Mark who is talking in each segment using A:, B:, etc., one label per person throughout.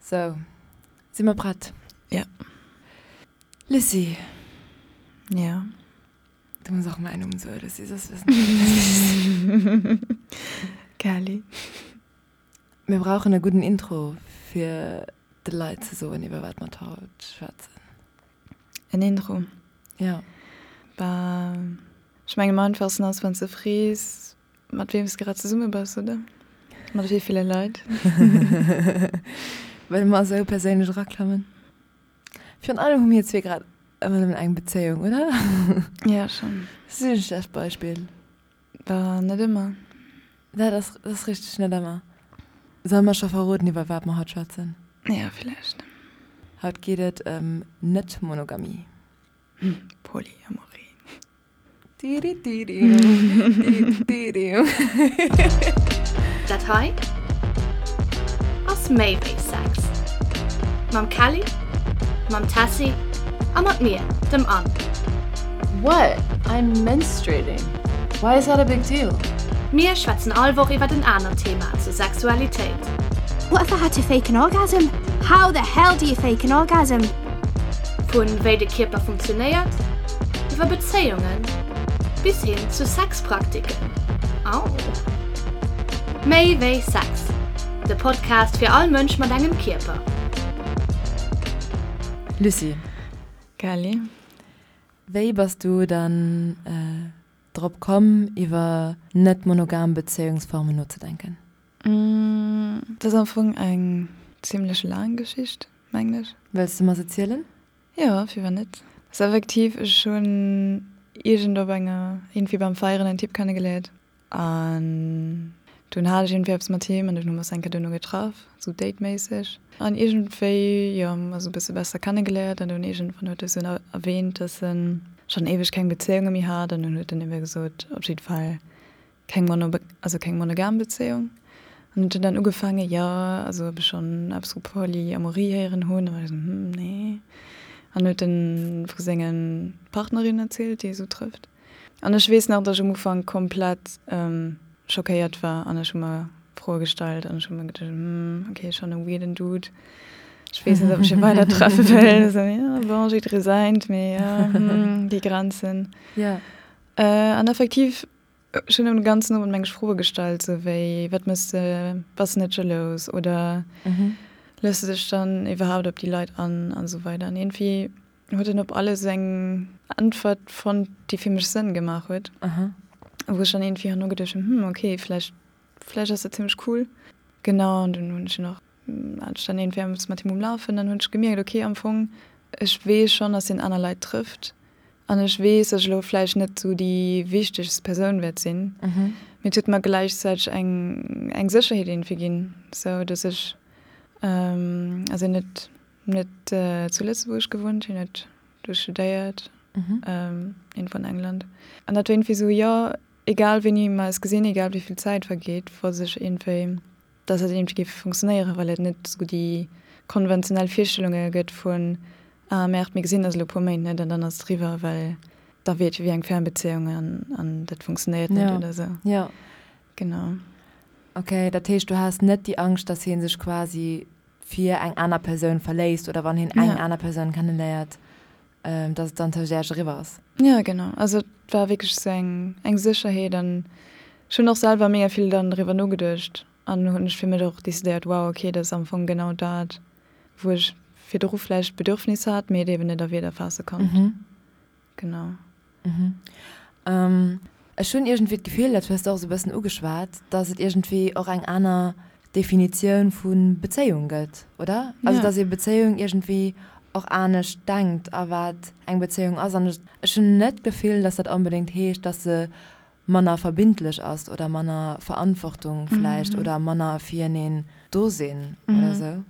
A: Sou, si mer prett?
B: Ja.
A: Lucie.
B: Ja.
A: Du muss och mäin Numm soen, Lucie, soss wëssen d'Leit net, wéi ech sinn.
B: Kelly.
A: Mir brauchen e gudden Intro, fir de Leit ze soen, iwwer wat mer haut schwätzen.
B: En Intro?
A: Ja.
B: Bah, ech mengen am einfachsten ass, wann s de frees, Mat weem s de grad zesumme bass, oder? Mat wéi ville Leit?
A: Wëlle mer esou perséinlech eraklammen? Virun allem hu mir zwee grad ëmmer nëmmen eng Bezéiung, oder?
B: Ja, schonn.
A: Sinn e schlecht Beispill.
B: Bah, net ëmmer.
A: Dat ass, dat ass richteg, net ëmmer. Solle mer scho verroden, iwwer wat mer haut schwätzen?
B: Ja, villäicht.
A: Haut geet et ëm Net-Monogamie.
B: Polyamorie.
C: Dat hei ass méi wéi Sex. Mam Kelly, mam Tessy a mat mir, dem Anne.
A: What? I'm menstruating. Why is that a big deal?
C: Mir schwätzen all Woch iwwert en anert Thema zur Sexualitéit.
D: What if I had to fake an orgasm? How the hell do you fake an orgasm?
C: Vun wéi de Kierper funktionéiert, iwwer Bezéiungen bis hin zu Sexpraktiken. Au! Méi wéi Sex, de Podcast fir all Mënsch mat engem Kierper.
A: Lucie.
B: Kelly.
A: Wéi bass du dann drop komm, iwwer net monogam Bezéiungsformen nozedenken?
B: Dat ass am Fong eng zimlech laang Geschicht, mengen ech.
A: Wëlls de mer se zielen?
B: Jo, firwat net. Ass effektiv, ech hunn iergend op enger, iergendwéi beim Feieren en Typ kennegeléiert an dunn hat ech iergendwéi eppes mat him an dunn hu mer eis eng Kéier duerno getraff, sou dateméisseg an iergendwéi, jo, hu mer eis e bësse besser kennegeléiert an dunn iergendwann huet e sou erwähnt, dass en schonn éiweg keng Bezéiunge méi hat an dunn huet en ebe gesot, op jidde Fall keng mono, also keng monogam Bezéiung. An huet dann ugefaangen, jo, also ob ech schonn eppes vu Polyamorie héieren hunn. A war ech esou, hm, nee. An huet en vu senge Partnerinnen erzielt, déi e sou trëfft. An ech weess nach, datt ech um Ufank komplett schockéiert war an ech hu mer Froe gestallt an ech hu mer geduecht, hm, okay, schonn e weirden Dude. Ech weess net, ob ech hie weider treffe wëll. Esou, jo, bon, jidderee säint, mee jo, hm, déi Grenzen.
A: Jo.
B: An effektiv Ech hunn den ganzen Owend meng Froe gestallt, sou wéi, Wat mëss de? Bass de net jalous? Oder looss de dech dann iwwerhaapt op déi Leit an? An esou weider. An iergendwéi huet en op alles eng Äntwert fonnt, déi fir mech Sënn gemaach huet. Wou ech dann iergendwéi herno geduecht hunn, Hm, okay, vläicht, vläicht ass dat zimmlech cool. Genau, an dunn hunn ech en och hat ech dann iergendwéi eppes mat him um Lafen. Dann hunn ech gemierkt, okay, am Fong, ech weess schonn, dass hien aner Leit trëfft. An ech weess, dass ech elo vläicht net esou déi wichtegst Persoun wäert sinn, mee et huet mer gläichzäiteg eng eng Sécherheet iergendwéi ginn, sou dass ech, also hien huet net zu Lëtzebuerg gewunnt, hien huet do studéiert, iergendwou an England. An dat war iergendwéi esou, jo, egal wéini mer eis gesinn, egal wéi vill Zäit vergeet, wosst ech iergendwéi, dass dat iergendwéi géif funktionéieren, well et net esou déi konventionell Virstellunge gëtt vun, ah merde, mir gesinn eis elo e puer Méint net an dann ass et eriwwer, well da wier et jo wéi eng Fernbezéiung an an dat funktionéiert net oder esou.
A: Jo.
B: Genau.
A: Ok, dat heescht du has net déi Angscht, dass hie sech quasi fir eng aner Persoun verléisst oder wann hien eng aner Persoun kenneléiert, dass et dann tëscht Iech eriwwer ass.
B: Jo, genau. Also et war wierklech esou eng, eng Sécherheet an ech hunn och selwer mega vill dann driwwer nogeduecht an hunn ech fir mech och decidéiert, wow, okay, dat ass am Fong genau dat, wou ech virdru vläicht d'Bedürfnis hat, mee et eben net a Wierder faasse konnt. Genau.
A: Ech hunn iergendwéi d'Gefill, dat hues de och esou e bëssen ugeschwat, dass et iergendwéi och eng aner Definitioun vu Bezéiung gëtt, oder? Also dass ee Bezéiung iergendwéi och anescht denkt a wat eng Bezéiung ass. An ech hunn net d'Gefill, dass dat onbedéngt heescht, dass se manner verbindlech ass oder manner Verantwortung vläicht oder manner fireneen do sinn oder esou.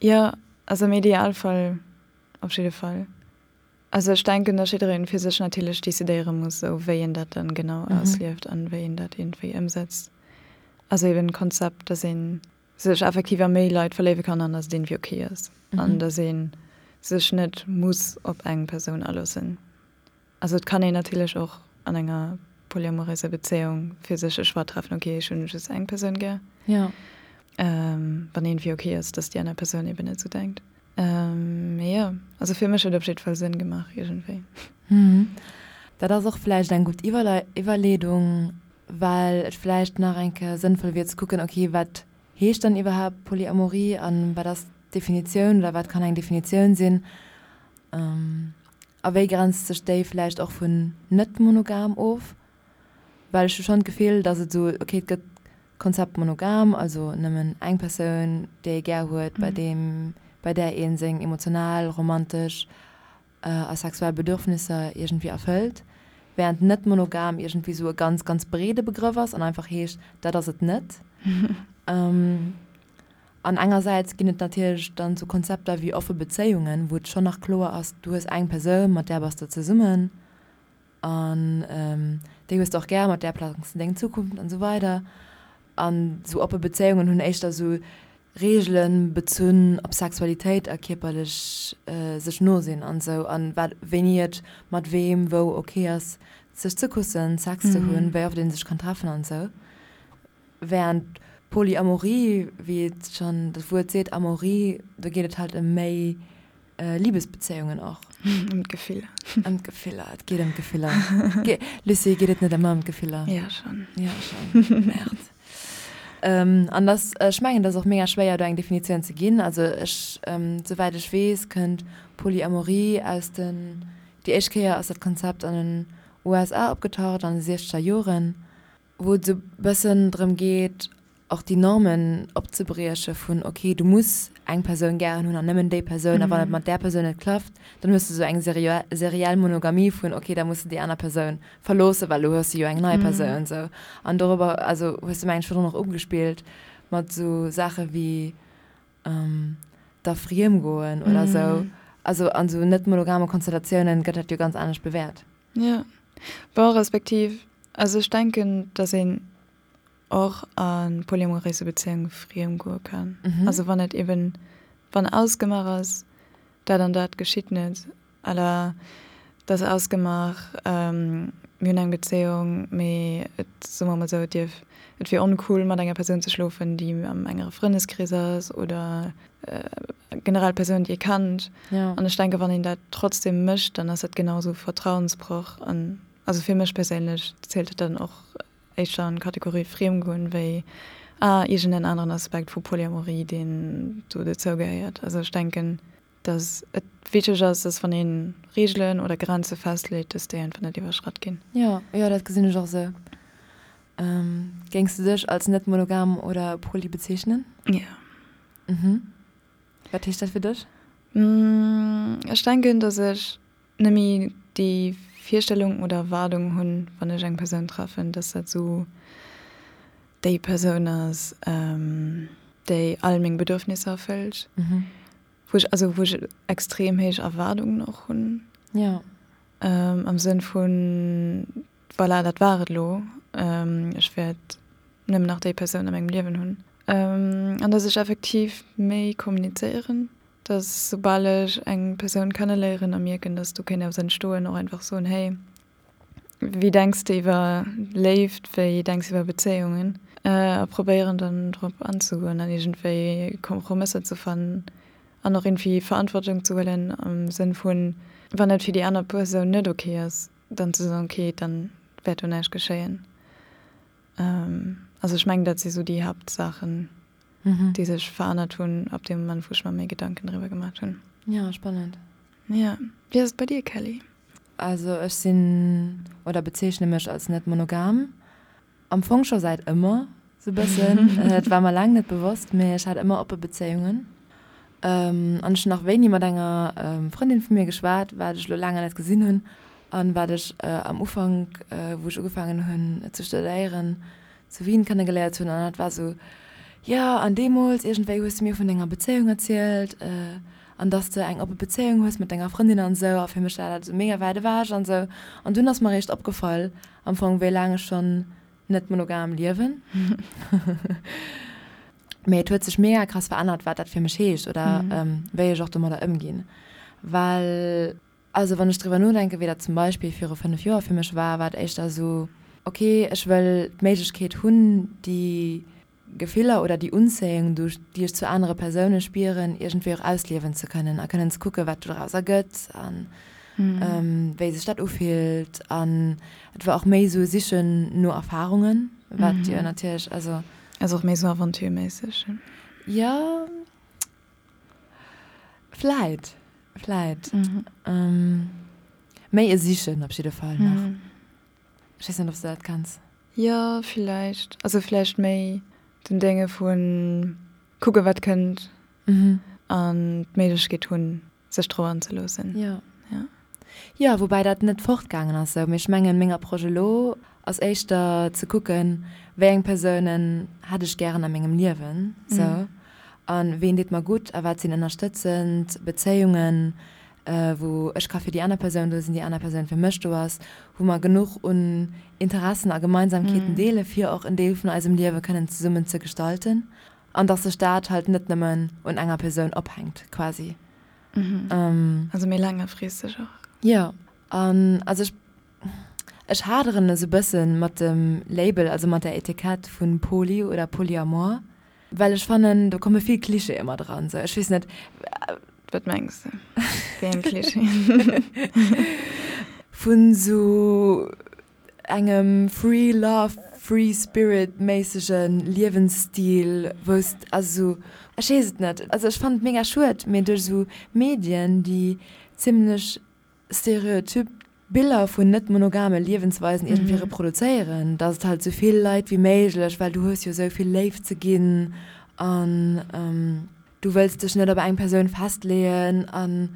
B: Jo, also am Idealfall op jidde Fall. Also ech denken, dass jiddereen fir sech natierlech decidéiere muss, esou wéi en dat dann genau auslieft an wéi en dat iergendwéi ëmsetzt. Also eben d'Konzept, dass ee sech effektiv a méi Leit verléiwe kann an dass et iergendwéi ok ass an dass ee sech net muss op eng Persoun aloossen. Also et kann een natierlech och an enger polyamouröser Bezéiung fir sech e Choix treffen, ok ech hunn just eng Persoun gär.
A: Jo.
B: Wann iergendwéi ok ass, dass déi aner Persoun eben net esou denkt. Mee jo, also fir mech huet op jiddwer Fall Sënn gemaach iergendwéi.
A: Dat ass och vläicht eng gutt Iwwerleedung, well et vläicht nach eng Kéier sënnvoll wier ze kucken, ok, wat heescht dann iwwerhaapt Polyamorie an wat ass d'Definitioun oder wat kann eng Definitioun sinn a wéi grenzt sech déi vläicht och vun net monogam of? Well ech hu schonn d'Gefill, datt et esou, ok, et gëtt d'Konzept monogam, also nëmmen eng Persoun, déi ee gär huet, bei deem, bei där ee seng emotional, romantesch a sexuell Bedürfnisser iergendwéi erfëllt, wärend net monogam iergendwéi esou e ganz, ganz breede Begrëff ass an einfach heescht, dat ass et net. An engersäits ginn et natierlech dann esou Konzepter wéi offe Bezéiungen, wou et schonn nach kloer ass, du hues eng Persoun, mat där bass de zesummen. An déi hues de och gär, mat där plangs de deng Zukunft an esou weider. An esou oppe Bezéiungen hunn éischter esou Reegelen bezunn op Sexualitéit a kierperlech sech no sinn an esou an wat wéini et mat weem wou ok ass sech ze kussen, Sex ze hunn, wéi oft ee sech kann treffen an esou. Während Polyamorie, wéi et schonn dat Wuert seet, Amorie, do geet et halt ëm méi Libesbezéiungen och.
B: Ëm d'Gefiller.
A: Ëm d'Gefiller, et geet ëm d'Gefiller. Lucie, geet et net ëmmer ëm d'Gefiller?
B: Ja, schonn.
A: Ja, schonn. Merde. An dass, ech mengen, et ass och mega schwéier, do eng Definitioun ze ginn. Also ech, souwäit ech weess, kënnt Polyamorie aus den, déi éischt Kéier ass dat Konzept an den USA opgetaucht an de siechzeger Joren. wou et esou bëssen drëm geet, och déi Normen opzebrieche vun, ok, du muss eng Persoun gären hunn an nëmmen déi Persoun, a wann et mat där Persoun net klappt, dann hues de esou eng seriell Monogamie vun, ok, da muss de déi aner Persoun verloossen, well elo hues de jo eng nei Persoun esou. An dorobber, also hues de mengen ech virdrun och ugespillt mat esou Saache wéi da friemgoen oder esou. Also an esou net monogame Konstellatiounen gëtt dat jo ganz anescht bewäert.
B: Jo, bon, respektiv, also ech denken, datt een och a polyamoréise Bezéiunge friem goe kann. Also wann et eben, wann ausgemaach ass, dat an dat geschitt net, à la, et ass ausgemaach, mir hunn eng Bezéiung, mee et, soe mer mol esou, et dierf, et wier oncool mat enger Persoun ze schlofen, déi am engere Frëndeskrees ass oder generell Persounen, déi ee kennt. An ech denken, wann een dat trotzdem mécht, dann ass dat genau esou Vertrauensbroch. An also fir mech perséinlech zielt et dann och éischter an d'Kategorie Friemgoen wéi ah iergend en aneren Aspekt vu Polyamorie, deen do dozou gehéiert. Also ech denken, dass et wichteg ass, dass wann ee Reegelen oder Grenze festleet, dass déi einfach net iwwerschratt ginn.
A: Jo, jo, dat gesinn ech och esou. Géings du dech als net monogam oder poly bezeechnen?
B: Jo.
A: Mhm. Wat heescht dat fir dech?
B: Ech denken, dass ech nëmme déi Virstellung oder Erwaardung hunn, wann ech eng Persoun treffen, dass dat esou déi Persoun ass, déi all meng Bedürfnisser erfëllt. Wou ech, also wou ech extrem héich Erwaardungen och hunn.
A: Jo.
B: Am Sënn vun, Voilà, dat war et elo. Ech wäert nëmmen nach déi Persoun a mengem Liewen hunn. An dass ech effektiv méi kommunizéieren, dass soubal ech eng Persoun kenneléieren a mierken, dass do kéint eppes entstoen, och einfach soen, Hey, wéi denks de iwwer Léift, wéi denks de iwwer Bezéiungen? A probéieren dann drop anzegoen an iergendwéi Kompromësser ze fannen an och iergendwéi Verantwortung ze huelen am Sënn vun, wann et fir déi aner Persoun net ok ass, dann ze soen, ok, dann wäert do näischt geschéien. Also ech mengen, dat si sou déi Haaptsaachen, déi sech verännert hunn ab deem Moment, wou ech mer méi Gedanken driwwer gemaat hunn.
A: Ja, spannend.
B: Ja. Wéi ass et bei dir, Kelly?
A: Also ech sinn, oder bezeechne mech als net monogam. Am Fong scho säit ëmmer sou bëssen. Et war mer laang net bewosst, mee ech hat ëmmer oppe Bezéiungen. An ech hunn nach wéini mat enger Frëndin vu mir geschwat, wat ech elo laang net gesinn hunn an wat ech am Ufank, wou ech ugefaangen hunn ze studéieren, zu Wien kennegeléiert hunn. An dat war sou, jo, an deemools iergendwéi hues de mir vun denger Bezéiung erzielt an dass de eng oppe Bezéiung hues mat denger Frëndin an esou. A fir mech war dat esou mega wäit ewech an esou. An dunn ass mer eréischt opgefall, Am Fong wéi laang ech schonn net monogam liewen. Mee et huet sech mega krass verännert, wat dat fir mech heescht oder wéi ech och domadder ëmginn. Well, also wann ech driwwer nodenken, wéi dat zum Beispill viru 5 Joer fir mech war, war et éischter esou, ok, ech wëll d'Méiglechkeet hunn, déi. Gefiller oder déi Unzéiung, déi ech zu anere Persoune spieren, iergendwéi och ausliewen ze kënnen a kënnen ze kucken, wat doraus ergëtt a wéi sech dat ufillt. An et war och méi esou e Sichen no Erfarungen, wat jo natierlech, also.
B: Also och méi esou aventureméisseg.
A: Jo, vläit, vläit. Méi e Sichen op jidde Fall nach. Ech weess net, ob s de dat kenns.
B: Jo, villäicht. Also villäicht méi den Dénge vu kucke wat kënnt an d'Méiglechkeet hunn, sech drop anzeloossen.
A: Jo. Jo, woubäi dat net fortgaangen ass esou. Mee ech mengen, meng Approche elo ass éischter ze kucken, wéi eng Persounen hätt ech gären a mengem Liewen esou a ween deet mer gutt a wat sinn ënnerstëtzend Bezéiungen, wou ech ka fir déi aner Persoun do sinn, déi aner Persoun fir mech do ass, wou mer genuch un Interessen a Gemeinsamkeeten deele fir och en Deel vun eisem Liewe kënnen zesummen ze gestalten an dass sech dat halt net nëmmen un enger Persoun ophänkt quasi.
B: Also méi laangefristeg och.
A: Jo, an also ech ech haderen esou bësse mat dem Label, also mat der Etikett vu Poly oder Polyamor, Well ech fannen, do komme vill Clichéë mat eran, sou, ech weess net.
B: Wat mengs de? Wéi eng Clichéen?
A: Vun sou engem Free Love, Free Spirit méissege Liewensstil, wou s, also sou, ech weess et net, also ech fannen et mega schued, mee duerch sou Medien, déi zimlech stereotyp Biller vun net monogame Liewensweisen iergendwéi reproduzéieren, dass et halt sou vill Leit wéi méiglech, well du hues jo sou vill Léift ze ginn an du wëlls dech net op eng Persoun festleeën an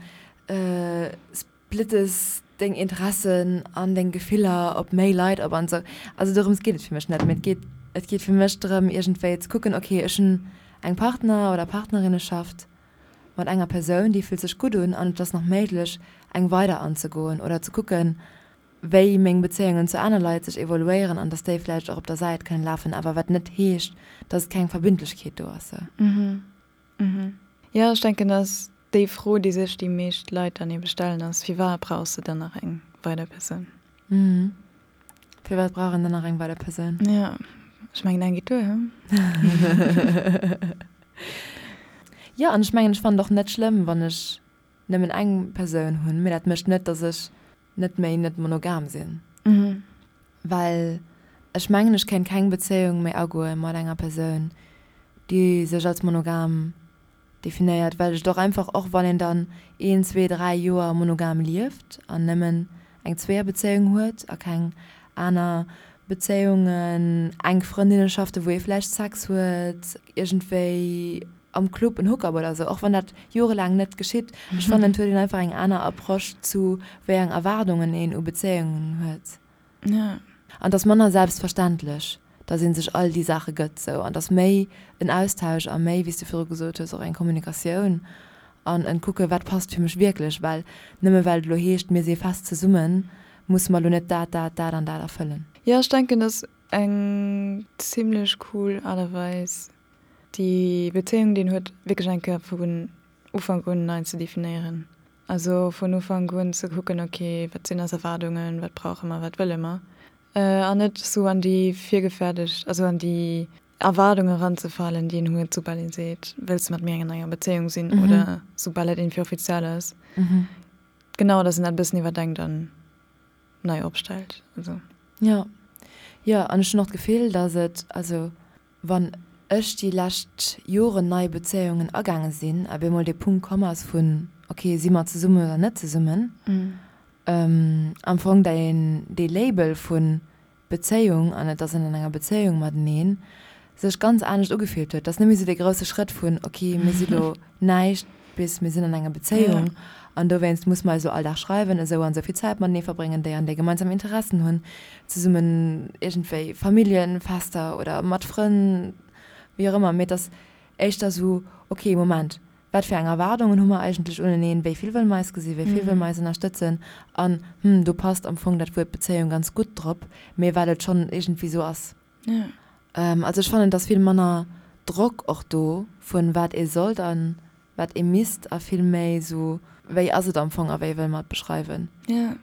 A: splittes deng Interessen an deng Gefiller op méi Leit op an sou. Also dorëms geet et fir mech net, mee et geet et geet fir mech drëm iergendwéi ze kucken, ok ech hunn eng Partner oder Partnerinneschaft, mat enger Persoun, déi fillt sech gutt un an et ass nach méiglech, eng weider anzegoen oder ze kucken, wéi meng Bezéiungen zu aner Leit sech evoluéieren an dass déi vläicht och op der Säit kënnen lafen, awer wat net heescht, dass et keng Verbindlechkeet do ass.
B: Jo, ech denken, dass déi Fro, déi sech déi meescht Leit dann ebe stellen, ass, Firwat brauchs de dann nach eng weider Persoun?
A: Firwat brauch een dann nach eng weider Persoun?
B: Jo, ech mengen eng geet duer, he?
A: Jo, an ech mengen, ech fannen et och net schlëmm, wann ech nëmmen eng Persoun hunn, mee dat mécht net, datt ech net méi net monogam sinn. Well ech mengen, ech kéint keng Bezéiung méi agoe mat enger Persoun, déi sech als monogam definéiert, well ech et och einfach, och wann een dann een, zwee, dräi Joer monogam lieft an nëmmen eng Zweeërbezéiung huet a keng aner Bezéiungen, enk Frëndinneschaften, wou ee vläicht Sex huet, iergendwéi am Club en Hookup oder esou, och wann dat jorelaang net geschitt, ech fannen et huet een einfach eng aner Approche zu wéi eng Erwaardungen een u Bezéiungen huet. An et ass manner selbstverständlech, dass ee sech all déi Saache gëtt sou. An et ass méi en Austausch a méi, wéi s du virdru gesot hues, och eng Kommunikatioun an en Kucke wat passt fir mech wierklech. Well nëmme well et elo heescht, mir si fest zesummen, musse mer elo net dat, dat, dat an dat erfëllen.
B: Jo, ech denken, dass eng zimlech cool Aart a Weis, déi Bezéiung, déi een huet, wierklech eng Kéier vun Ufank un nei ze definéieren. Also vun Ufank un ze kucken, ok, wat sinn eis Erwaardungen, wat brauche mer, wat wëlle mer? An net esou an déi virgefäerdegt, also an déi Erwaardunge eranzefalen, déi een huet, soubal ee seet, wëlls de mat mir an enger Bezéiung sinn oder soubal et iergendwéi offiziell ass. Genau, datt een dat e bëssen iwwerdenkt an nei opstellt. Also.
A: Jo, jo, an ech hunn och d'Gefill, datt et, also Wann ech déi lescht Joren nei Bezéiungen agaange sinn a bemol dee Punkt komm ass vun, ok, si mer zesummen oder net zesummen, am Fong dee Label vu Bezéiung an et ass een an enger Bezéiung mateneen, sech ganz anescht ugefillt huet. Et ass net méi esou dee grousse Schrëtt vun, ok, mir si lo näischt bis mir sinn an enger Bezéiung an dowéinst musse mer eis elo all Dag schreiwen, esou an esou vill Zäit matenee verbréngen, déi an déi gemeinsam Interessen hunn, zesummen iergendwéi Familljenfester oder mat Frënn, wéi och ëmmer. Mee et ass éischter esou, ok, Moment, wat fir eng Erwaardungen hu mer eigentlech uneneen, wéi vill wëlle mer eis gesinn, wéi vill wëlle mer eis ënnerstëtzen an, hm, do passt am Fong dat Wuert Bezéiung ganz gutt drop, mee well et schonn iergendwéi esou ass. Also ech fannen et ass vill manner Drock och do vun wat ee sollt an wat ee misst a vill méi esou wéi ass et am Fong a wéi wëlle mer et beschreiwen.
B: Jo.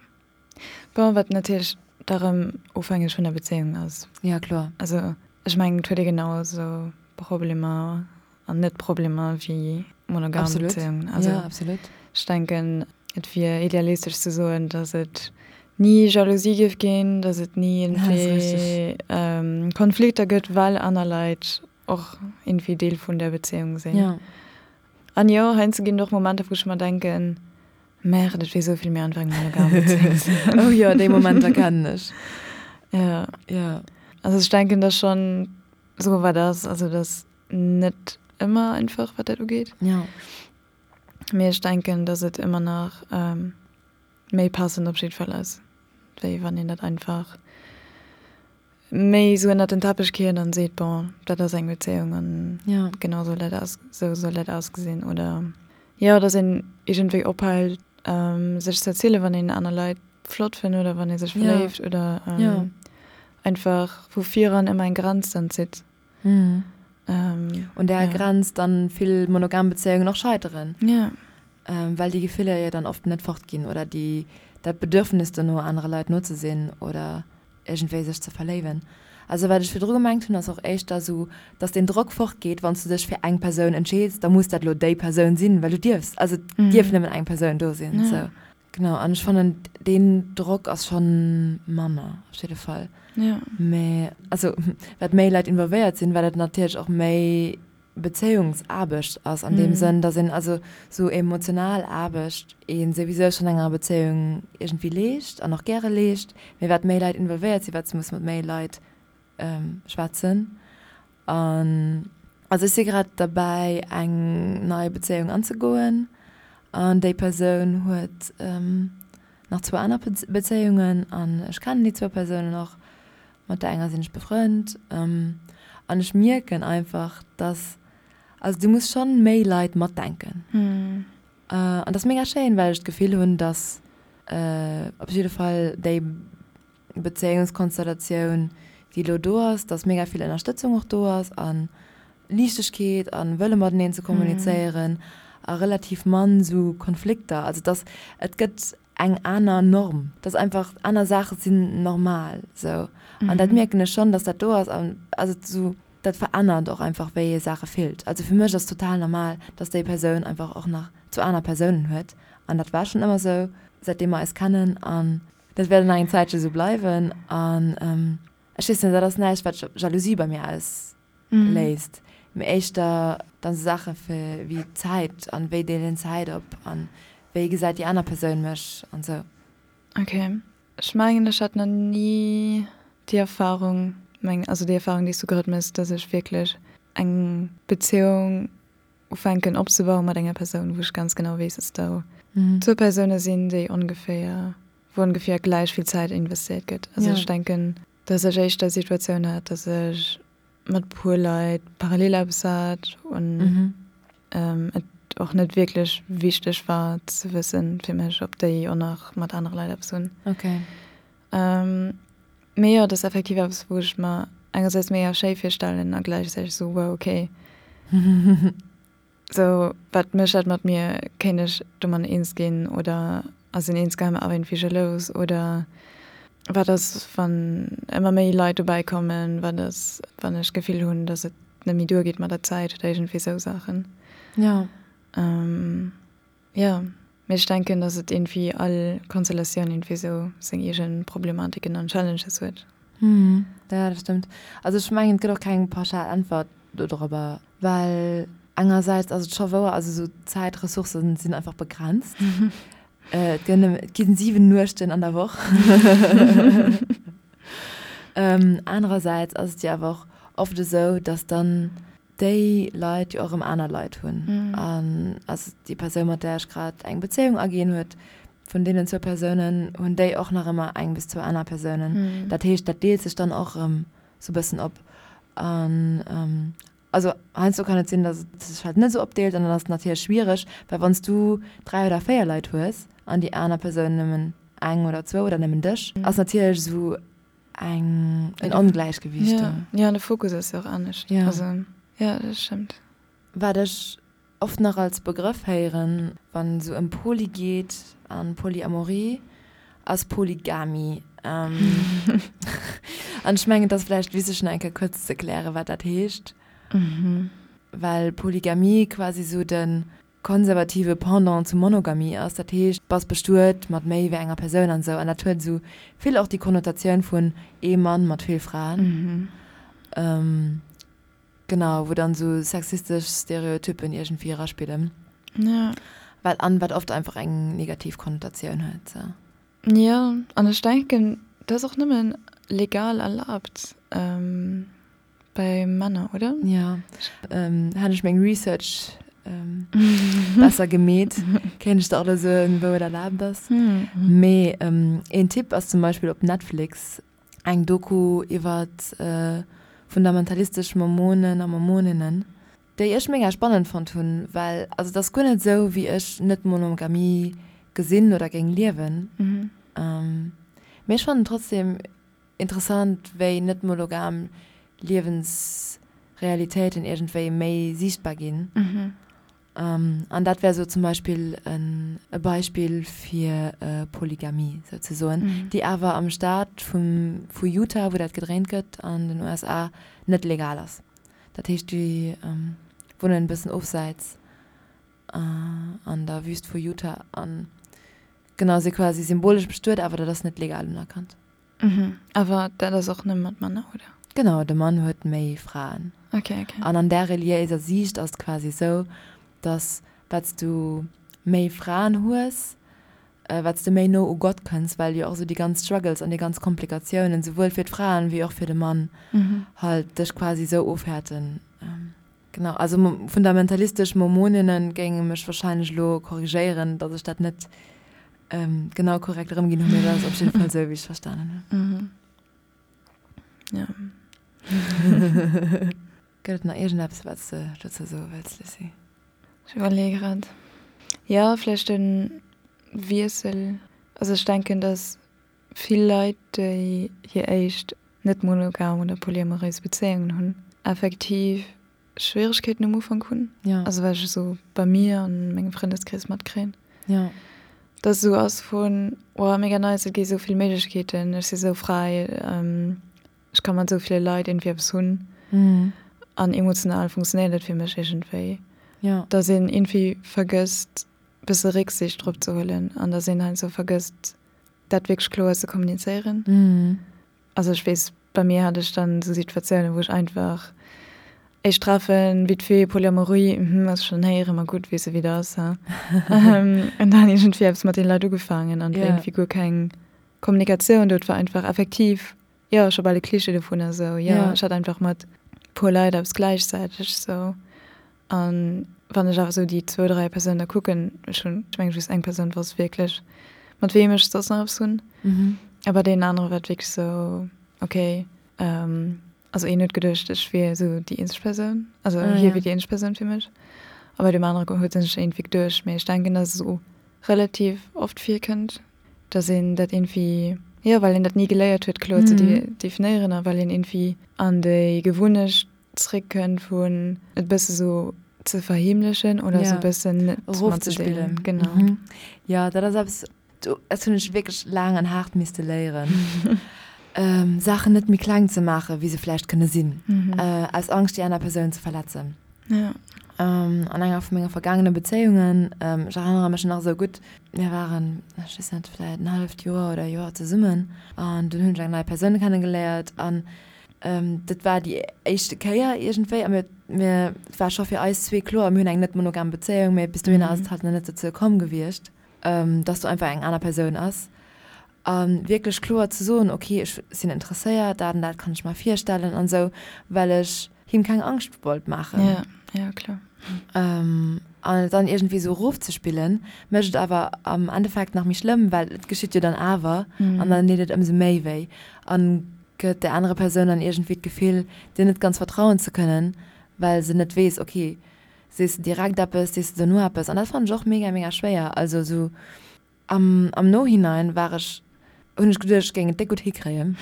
B: Bon, wat natierlech da rëm ofhängeg vun der Bezéiung ass.
A: Ja kloer.
B: Also. Ech mengen, et huet ee genau esou Problemer an net Problemer wéi monogam Bezéiungen.
A: Also ja, absolut.
B: Ech denken, et wier idealistesch ze soen, datt et ni Jalousie géif ginn, datt et ni iergendwéi Konflikter gëtt, well aner Leit och iergendwéi Deel vun där Bezéiung sinn.
A: Ja.
B: An jo, heiansdo ginn et och Momenter, wou ech mer denken, Merde, et wier esou vill méi einfach eng monogam Bezéiung ze
A: hunn. Oh jo, déi Momenter kennen ech.
B: Ja.
A: Ja.
B: Also ech denken, datt schonn esou wat ass, also datt net ëmmer einfach, wat dat ugeet.
A: Ja.
B: Mee ech denken, datt et ëmmer nach méi passend op jidde Fall ass, wéi wann een dat einfach méi esou ënnert den Teppech kiert an seet, bon, dat ass eng Bezéiung an
A: ja.
B: genau soll dat aus, esou soll dat ausgesinn. Oder jo, datt een iergendwéi ophält, sech ze erzielen, wann een aner Leit flott fënnt oder wann ee sech verléift oder
A: ja.
B: einfach vu viran ëmmer eng Grenz dann zitt.
A: Mhm. Ähm, Un där ja. Grenz dann vill monogam Bezéiungen och scheiteren.
B: Ja.
A: Ähm, well déi Gefiller jo dann oft net fortginn oder déi, dat Bedürfnis dono, anere Leit no ze sinn oder iergendwéi sech ze verléiwen. Also wat ech virdru gemengt hunn, ass och éischter esou, dass deen Drock fortgeet, wann s du dech fir eng Persoun entscheeds, da muss dat elo déi Persoun sinn, well du dierfs, also et dierf nëmmen eng Persoun do sinn.
B: Ja.
A: Sou. Genau, an ech fannen deen Drock ass schonn manner op jidde Fall.
B: Ja.
A: Mee also wat méi Leit involvéiert sinn, wat et natierlech och méi Bezéiungsaarbecht ass an deem Sënn, datt een also sou emotional Aarbecht ee souwisou schonn enger Bezéiung iergendwéi leescht an och gäre leescht, mee wat méi Leit involvéiert sinn, wat s muss mat méi Leit schwätzen. An also ech si grad derbäi eng nei Bezéiung anzegoen an déi Persoun huet nach zwou aner Bezéiungen an ech kennen déi zwou Persounen och, mat der enger sinn ech befrënnt an ech mierken einfach, dass, also du muss schonn méi Leit matdenken. An dat ass mega schéin, well ech d'Gefill hunn, dass op jidde Fall déi Bezéiungskonstellatioun, déi elo do ass, dass mega vill Ënnerstëtzung och do ass a Liichtegkeet a Wëlle mateneen ze kommunizéieren a relativ mann esou Konflikter. Also dass et gëtt eng aner Norm, dass einfach aner Saache sinn normal esou. An dat mierken ech schonn, dass dat do ass an also esou dat verännert och einfach wéi ee Saache fillt. Also fir mech ass total normal, dass déi Persoun einfach och nach zwou aner Persounen huet an dat war schonn ëmmer esou säitdeem mer eis kennen an Dat wäert nach eng Zäitche sou bleiwen an ech weess net, dat ass näischt wat Jalousie bei mir ausléist, mee éischter dann sou Saache fir wéi Zäit an wéi deelen een Zäit op an wéi gesäit déi aner Persoun mech an sou.
B: Ok, ech mengen ech hat nach ni déi Erfahrung, meng also déi Erfahrung déi s du grad méchs, dass ech wierklech eng Beziehung ufänken opzebauen mat enger Persoun, wou ech ganz genau weess, dass do zwou Persoune sinn, déi ongeféier, wou ongeféier gläich vill Zäit investéiert gëtt. Also ech denken, dass ech éischter d'Situatioun hat, dass ech mat puer Leit parallel eppes hat an et och net wierklech wichteg war ze wëssen fir mech, ob déi och nach mat anere Leit eppes hunn. Mee jo, et ass effektiv eppes, wou ech mer engersäits mega schéi virstellen a gläichzäiteg esou, wow, okay. Sou, wat mécht dat mat mir? Kéint ech domat eens ginn oder ass een insgeheim awer iergendwéi jalous? Oder wat ass, wann ëmmer méi Leit dobäi kommen? Wat ass, wann ech d'Gefill hunn, datt et net méi duergeet mat der Zäit oder iergendwéi esou Saachen?
A: Jo.
B: Jo, mee ech denken, dass et iergendwéi all Konstellatioun iergendwéi esou seng eegen Problematiken an Challenges huet.
A: Hm, ja, dat stëmmt. Also ech mengen, et gëtt och keng pauschal Äntwert dodrobber, well engersäits ass et scho wouer, also esou Zäitressourcen sinn einfach begrenzt. Et gëtt nëmme, et ginn 7 Nuechten an der Woch. Anerersäits ass et jo awer och oft esou, dass dann déi Leit jo och erëm aner Leit hunn. An also déi Persoun, mat där ech grad eng Bezéiung aginn huet, vun deenen zwou Persounen hunn déi och nach ëmmer eng bis zwou aner Persounen. Dat heescht, dat deelt sech dann och erëm sou e bëssen op. An also heiansdo kann et sinn, datt et sech halt net esou opdeelt an dann ass et natierlech schwiereg, well wann s du dräi oder véier Leit hues an déi aner Persoun nëmmen eng oder zwou oder nëmmen dech, ass natierlech esou eng en Ongläichgewiicht
B: do. Jo, an de Fokus ass jo och anescht.
A: Ja.
B: Also, jo, dat stëmmt.
A: Wat ech oft nach als Begrëff héieren, wann esou ëm Poly geet an Polyamorie, ass Polygamie. An An ech mengen, et ass vläicht wichteg nach eng Kéier kuerz ze erklären, wat dat heescht. Well Polygamie quasi sou de konservative Pendant zu Monogamie ass. Dat heescht, bass bestuet mat méi wéi enger Persoun an esou. An dat huet esou vill och déi Konnotatioun vun ee Mann mat vill Fraen. Genau, wou dann esou sexistesch Stereotyppen iergendwéi eraspillen.
B: Ja.
A: Wat, an wat oft einfach eng negativ Konnotatioun huet, sou.
B: Jo, an ech denken, dat ass och nëmmen legal erlaabt bei Männer, oder?
A: Jo, hätt ech meng Research besser gemeet, kéint ech der och elo soen, wou et erlaabt ass. Mee een Tipp ass zum Beispill op Netflix eng Doku iwwer fundamentalistesch Mormonen a Mormoninnen, déi ech mega spannend fonnt hunn, well also et ass guer net esou wéi ech Net-Monogamie gesinn oder géing liewen, mee ech fannen trotzdem interessant wéi net-monogam Liewensrealitéiten iergendwéi méi siichtbar ginn. An dat wär sou zum Beispill e Beispill fir Polygamie souzesoen, déi awer am Staat vum vu Utah, wou dat gedréint gëtt, an den USA, net legal ass. Dat heescht, déi wunnen e bëssen ofsäits an der Wüst vu Utah an genau, si quasi symbolesch bestuet, awer dat ass net legal unerkannt.
B: Mhm, awer dat ass och nëmme mat Männer, oder?
A: Genau, de Mann huet méi Fraen.
B: Okay, okay.
A: An an där reliéiser Siicht ass et quasi esou, dass wat s du méi Fraen hues, wat s de méi no u Gott kënns, well jo och esou déi ganz Struggles an déi ganz Komplikatiounen, souwuel fir d'Fraen wéi och fir de Mann, halt dech quasi esou ofhäerten. Genau, also fundamentalistesch Mormoninnen géinge mech wahrscheinlech elo korrigéieren, dass ech dat net genau korrekt erëmginn hunn, mee dat ass op jidde Fall esou, wéi ech et verstanen
B: hunn. Ja.
A: Gëtt et nach iergendeppes, wat s de dozou soe wëlls, Lucie?
B: Ech iwwerleeë grad. Jo, vläicht de Wiessel. Also ech denken, dass vill Leit, déi hir éischt net monogam oder polyamoréis Bezéiungen hunn, effektiv Schwieregkeeten um Ufank hunn.
A: Ja.
B: Also wat ech esou bei mir an mengem Frëndeskrees matkréien.
A: Ja.
B: Dass esou ass vun, oh mega nice, et gi esou vill Méiglechkeeten, ech si esou fräi, ech ka mat esou ville Leit iergendwéi eppes hunn. An emotional funktionéiert et fir mech iergendwéi.
A: Ja.
B: Dass een iergendwéi vergësst bësse Récksiicht drop ze huelen an dass een heiansdo vergësst dat wierklech kloer ze kommunizéieren. Also ech weess, bei mir hat ech dann esou Situatiounen, wou ech einfach éischt Treffen, vite fait, Polyamorie, mhm, ass schonn héieren, ma gutt, weess e wéi dat ass, he. An dann iergendwéi eppes mat deene Leit ugefaangen an et war iergendwéi guer keng Kommunikatioun do, et war einfach effektiv, jo, scho bal e Klischee dovunner esou, jo, ech hat einfach mat puer Leit eppes gläichzäiteg esou. An wann ech awer esou déi zwou, dräi Persounen da kucken, ech hunn, ech mengen just eng Persoun wosst wierklech, mat weem ech soss nach eppes hunn. A bei deenen anere war et wierklech esou, okay, also een huet geduecht, ech wier esou déi eenzeg Persoun, also hie wier déi eenzeg Persoun fir mech. A bei deem anere huet en sech iergendwéi geduecht. Mee ech denken, dass et esou relativ oft virkënnt, dass een dat iergendwéi, jo, well een dat ni geléiert huet, kloer ze definéieren a well een iergendwéi an déi Gewunnecht zréckkënnt vun et bësse sou ze verheemlechen oder sou bëssen net
A: erofzespillen.
B: Genau.
A: Jo, dat ass eppes, dat hunn ech wierklech laang an haart misste léieren, Saachen net méi kleng ze maachen, wéi se vläicht kënne sinn, aus Angscht, déi aner Persoun ze verletzen.
B: Ja.
A: An enger vu menge vergaangene Bezéiungen, ech erënnere mech nach esou gutt, mir waren, ech weess net, vläicht en halleft Joer oder e Joer zesummen an dunn hunn ech eng nei Persoun kennegeléiert an Dat war déi éischte Kéier iergendwéi a mir, mir, et war scho fir eis zwee kloer, mir hunn eng net monogam Bezéiung, mee bis dohinner ass et halt nach net dozou komm gewiescht, dass do einfach eng aner Persoun ass. A wierklech kloer ze soen, ok, ech sinn interesséiert, dat an dat kann ech mer virstellen an esou, well ech him keng Angscht wollt maachen.
B: Ja, ja, kloer.
A: An et dann iergendwéi esou erofzespillen, mécht et awer am Endeffekt nach méi schlëmm, well et geschitt jo dann awer an dann deet et ëmsou méi wéi. An gëtt där anerer Persoun dann iergendwéi d'Gefill, dir net ganz vertrauen ze kënnen, well se net weess, ok, sees de direkt eppes, sees de dono eppes? An dat fannen ech och mega, mega schwéier. Also esou am, am Nohinein war ech, hunn ech geduecht, ech géing et déck gutt hikréien.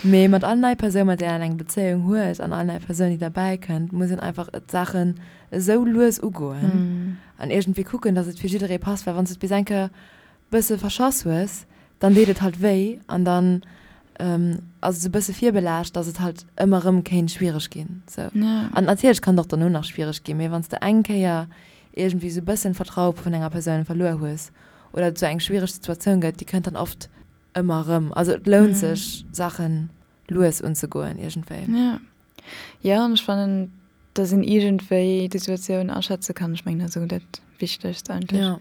A: Mee mat all nei Persoun, mat där een eng Bezéiung huet an all nei Persoun, déi derbäi kënnt, muss een einfach d'Saachen esou lues ugoen an iergendwéi kucken, datt et fir jidderee passt, well wann s de et bis eng Kéier bësse verschass hues, dann deet et halt wéi an dann. Ass et esou e bësse virbelaascht, dass et halt ëmmer erëm kéint schwiereg ginn. Sou. An natierlech kann et och dono nach schwiereg ginn, mee wann s de eng Kéier iergendwéi esou e bëssen d'Vertraue vun enger Persoun verluer hues oder et esou eng schwiereg Situatioun gëtt, déi kënnt dann oft ëmmer erëm. Also et lount sech, Saache lues unzegoen iergendwéi.
B: Jo. Jo, an ech fannen, dass een iergendwéi d'Situatioun aschätze kann. Ech mengen, dat ass esou dat Wichtegst eigentlech.
A: Ja.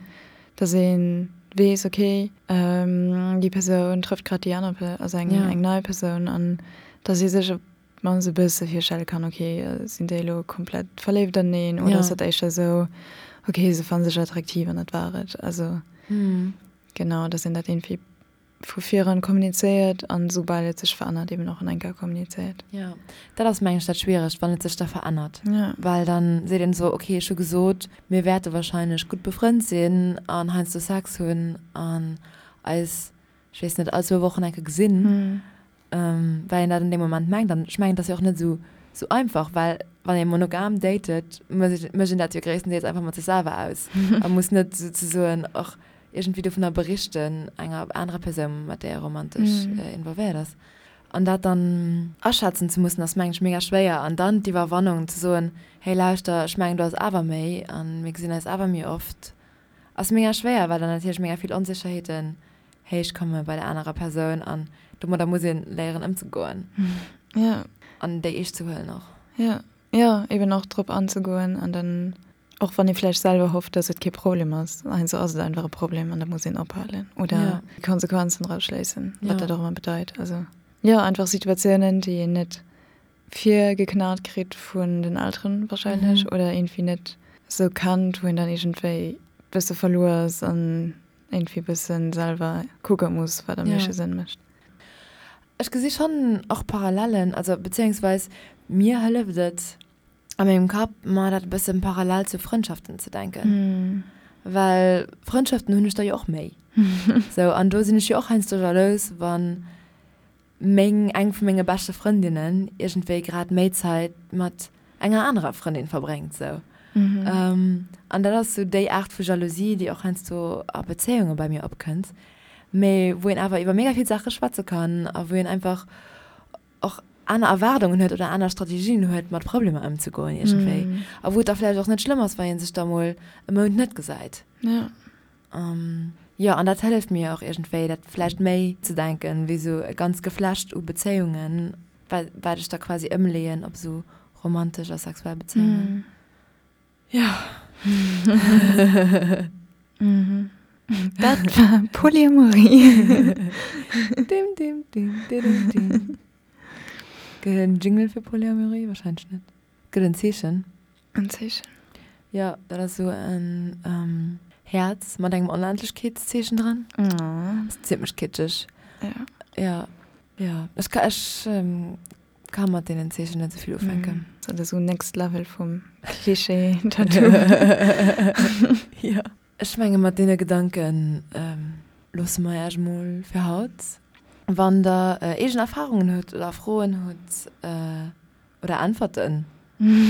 B: Dass ee weess, okay, déi Persoun trëfft grad déi aner, also eng, eng nei Persoun an dass ee sech op d'mannst e bësse virstelle kann, okay, sinn déi elo komplett verléift aneneen oder ass dat éischter esou, okay, se fanne sech attraktiv an dat war et. Also genau, dass een dat iergendwéi vu viran kommunizéiert an soubal et sech verännert eben och an enker kommunizéiert.
A: Jo, dat ass mengen ech dat Schwieregt, wann et sech da verännert, well dann seet een esou, okay ech hu gesot, mir wäerte wahrscheinlech gutt befrënnt sinn an heiansdo Sex hunn an eis, ech weess net, all zwou Wochen enke gesinn, well een dat an deem Moment mengt. An ech mengen, et ass jo och net esou esou einfach, well wann ee monogam datet, mécht een dat jo gréisstendeels einfach mat sech selwer aus a muss net souzesoen och iergendwéi dovunner berichten enger anerer Persoun, mat där ee romantesch involvéiert ass. An dat dann aschätzen ze mussen, ass mengen ech mega schwéier. An dann d'Iwwerwannung ze soen, hey lauschter, ech mengen do ass awer méi a mir gesinn eis awer méi oft, ass mega schwéier, well dann natierlech mega vill Onsécherheeten héich komme bei der anerer Persoun an domadder muss ee léieren ëmzegoen. An déi eescht ze huelen och.
B: Jo, jo, eben och drop anzegoen an dann Och wann ee vläicht selwer hofft, dass et kee Problem ass, heiansdo ass et einfach e Problem an da muss een ophalen oder déi Konsequenzen draus schléissen, wat dat och ëmmer bedeit. Also jo, einfach Situatiounen, déi een net virgeknat kritt vun den Elteren wahrscheinlech oder iergendwéi net esou kennt, wou een dann iergendwéi bësse verluer ass an iergendwéi bësse selwer kucke muss, wat am meeschte Sënn mécht.
A: Ech gesi schonn och Parallellen, also beziéungsweis mir hëlleft et, a mengem Kapp mer dat e bëssen parallel zu Frëndschaften ze denken. Well Frëndschaften hunn ech der jo och méi. Sou, an do sinn ech jo och heiansdo jalous, wann meng, eng vu menge beschte Frëndinnen iergendwéi grad méi Zäit mat enger anerer Frëndin verbréngt, sou. An dat ass sou déi Aart vu Jalousie, déi och heiansdo a Bezéiunge bei mir opkënnt, mee wou een awer iwwer mega vill Saache schwätze kann a wou een einfach och aner Erwaardungen huet oder aner Strategien huet, mat Problemer ëmzegoen iergendwéi. A wou et da vläicht och net schlëmm ass, wa ee sech da mol e Mount net gesäit.
B: Ja.
A: Jo, an dat hëlleft mir och iergendwéi, dat vläicht méi ze denken, wéi esou e ganz Geflecht u Bezéiungen, wat ech da quasi ëmleeën op esou romantesch a sexuell Bezéiungen.
B: Ja. Mhm. Dat war Polyamorie.
A: Dim, dim, dim, dim, dim. Gëtt et en Jingle fir Polyamorie? Wahrscheinlech net. Gëtt en Zeechen?
B: En Zeechen.
A: Ja, dat ass esou en ähm, Häerz mat engem Onendlechkeetszeechen dran.
B: Oh.
A: Ass zimmlech kitscheg.
B: Ja.
A: Ja, ja. Ech ka, ech ähm, Ka mat deenen Zeechen net esou vill ufänken.
B: Dat ass esou next level vum Klischee-Tattoo.
A: Jo. Ech menge mat deene Gedanke loosse mer Iech mol fir haut. Wann der eegen Erfarungen hutt oder Froen hutt oder Äntwerten,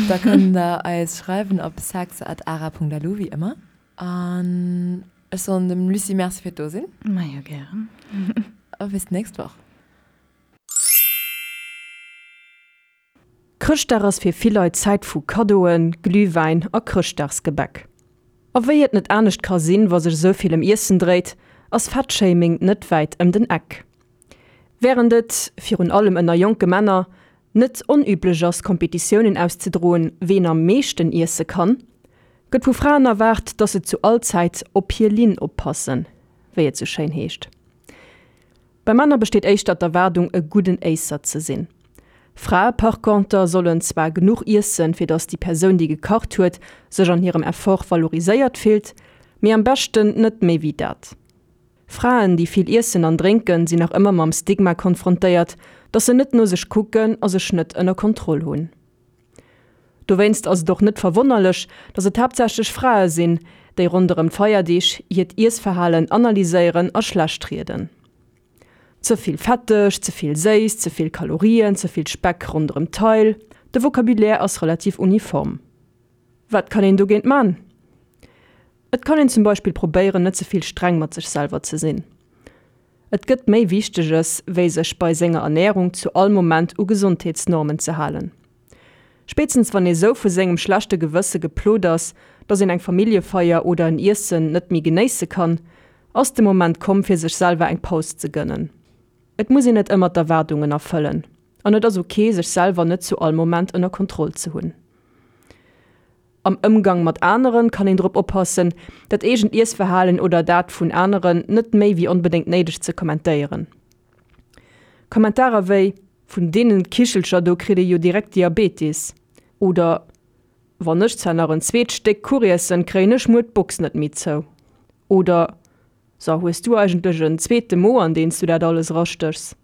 A: da kënnt der eis schreiwen op sex@ara.lu wéi ëmmer. An ech soen dem Lucie Merci fir d'Dosinn.
B: Majo gären.
A: A bis d'nächst Woch.
E: Chrëschtdag ass fir vill Leit Zäit vu Kaddoen, Glühwäin a Chrëschtdagsgebäck. A wéi et net anescht ka sinn, wa sech esou vill ëm Iessen dréit, ass Fettshaming net wäit ëm den Eck. Wärend et, virun allem ënner jonke Männer, net onüblech ass Kompetitiounen auszedroen, ween am meeschten iesse kann, gëtt vu Fraen erwaart, dass se zu all Zäit op hir Linn oppassen, wéi et sou schéin heescht. Bei Männer besteet éischter d'Erwaardung e gudden Éisser ze sinn. Frae par conter sollen zwar genuch iessen, fir datt déi Persoun déi gekacht huet sech an hirem Effort valoriséiert fillt, mee am beschten net méi wéi dat. Fraen déi vill iessen an drénken sinn nach ëmmer mam Stigma konfrontéiert, datt se net no sech kucken a sech net ënner Kontroll hunn. Dowéinst ass et och net verwonnerlech, datt et haaptsächlech Frae sinn, déi ronderëm d'Feierdeeg hiert Iessverhalen analyséieren a schlecht rieden. Ze vill fetteg, ze vill séiss, ze vill Kalorien, ze vill Speck ronderëm d'Taille, de Vocabulaire ass relativ uniform. Wat kann een dogéint man? Et kann een zum Beispill probéieren, net ze vill streng mat sech selwer ze sinn. Et gëtt méi Wichteges, wéi sech bei senger Ernärung zu all Moment u Gesondheetsnormen ze halen. Spéitstens wann ee sou vu sengem schlechte Gewësse geplot ass, dass een eng Familljefeier oder en Iessen net méi genéisse kann, ass de Moment komm fir sech selwer eng Paus ze gënnen. Et muss een net ëmmer d'Erwaardungen erfëllen an et ass ok sech selwer net zu all Moment ënner Kontroll ze hunn. Am Ëmgang mat aneren kann een drop oppassen, dat eegent Iessverhalen oder dat vun aneren net méi wéi onbedéngt néideg ze kommentéieren. Kommentarer wéi Vun deenen Kichelcher do kritt ee jo direkt Diabetis oder Wann ech zwar nach en zweet Stéck Kuch iessen, kréien ech muer d'Box net méi zou oder So, hues du eigentlech en zweete Mo an deen s du dat alles erastéchs?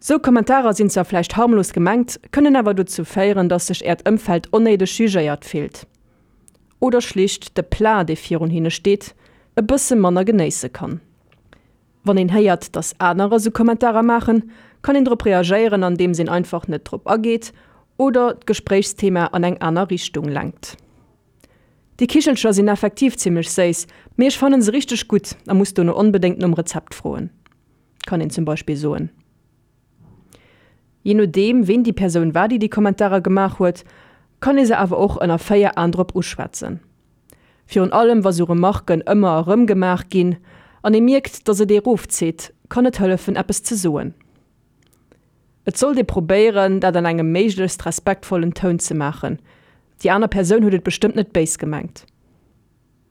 E: Sou Kommentarer sinn zwar vläicht harmlos gemengt, kënnen awer dozou féieren, dass sech äert Ëmfeld onnéideg jugéiert fillt oder schlicht de Plat, dee virun hinne steet, e bësse manner genéisse kann. Wann een héiert, dass anerer sou Kommentarer maachen, kann een drop reagéieren, andeems een einfach net drop ageet oder d'Gespréichsthema an eng aner Richtung lenkt. Déi Kichelcher sinn effektiv zimmlech séiss, mee ech fannen se richteg gutt a muss dono onbedéngt nom Rezept froen, kann een zum Beispill soen. Jee nodeem ween déi Persoun war, déi déi Kommentarer gemaach huet, kann ee se awer och ënner 4 Aen drop uschwätzen. Virun allem wa sou Remarken ëmmer erëm gemaach ginn an ee mierkt, dass et ee rofzitt, kann et hëllefen eppes ze soen. Et sollt ee probéieren, dat an engem méiglechst respektvollen Toun ze maachen. Déi aner Persoun huet et bestëmmt net béis gemengt.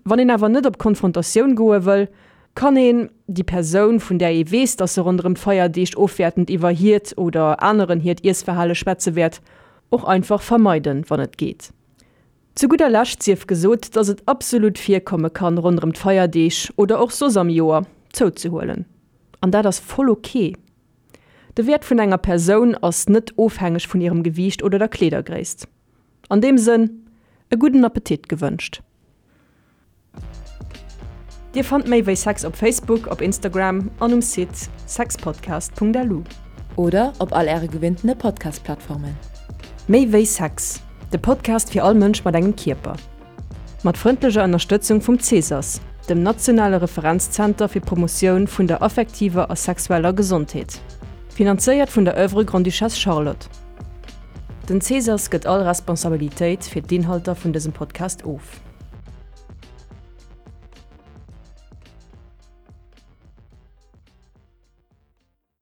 E: Wann een awer net op Konfrontatioun goe wëll, kann een déi Persoun, vun där ee weess, dass se ronderëm d'Feierdeeg ofwäertend iwwer hiert oder aneren hiert Iessverhale schwätze wäert, och einfach vermeiden, wann et geet. Zu gudder Lescht sief gesot, dass et absolut virkomme kann, ronderëm d'Feierdeeg oder och soss am Joer zouzehuelen. An dat ass voll ok. De Wäert vun enger Persoun ass net ofhängeg vun hirem Gewiicht oder der Kleedergréisst. An deem Sënn, e gudden Appetit gewënscht! Dir fannt méi wéi Sex op Facebook, op Instagram an um Site sexpodcast.lu.
A: Oder op all äre gewinntene Podcast-Plattformen.
E: Méi wéi Sex, de Podcast fir all Mënsch mat engem Kierper. Mat frëndlecher Ënnerstëtzung vum CSAS, dem nationale Referenzzenter fir d'Promotioun vun der affektiver a sexueller Gesondheet. Finanzéiert vun der Oeuvre Grande-Duchesse Charlotte. Den CSAS gëtt all Responsabilitéit fir d'Inhalter vun dësem Podcast of.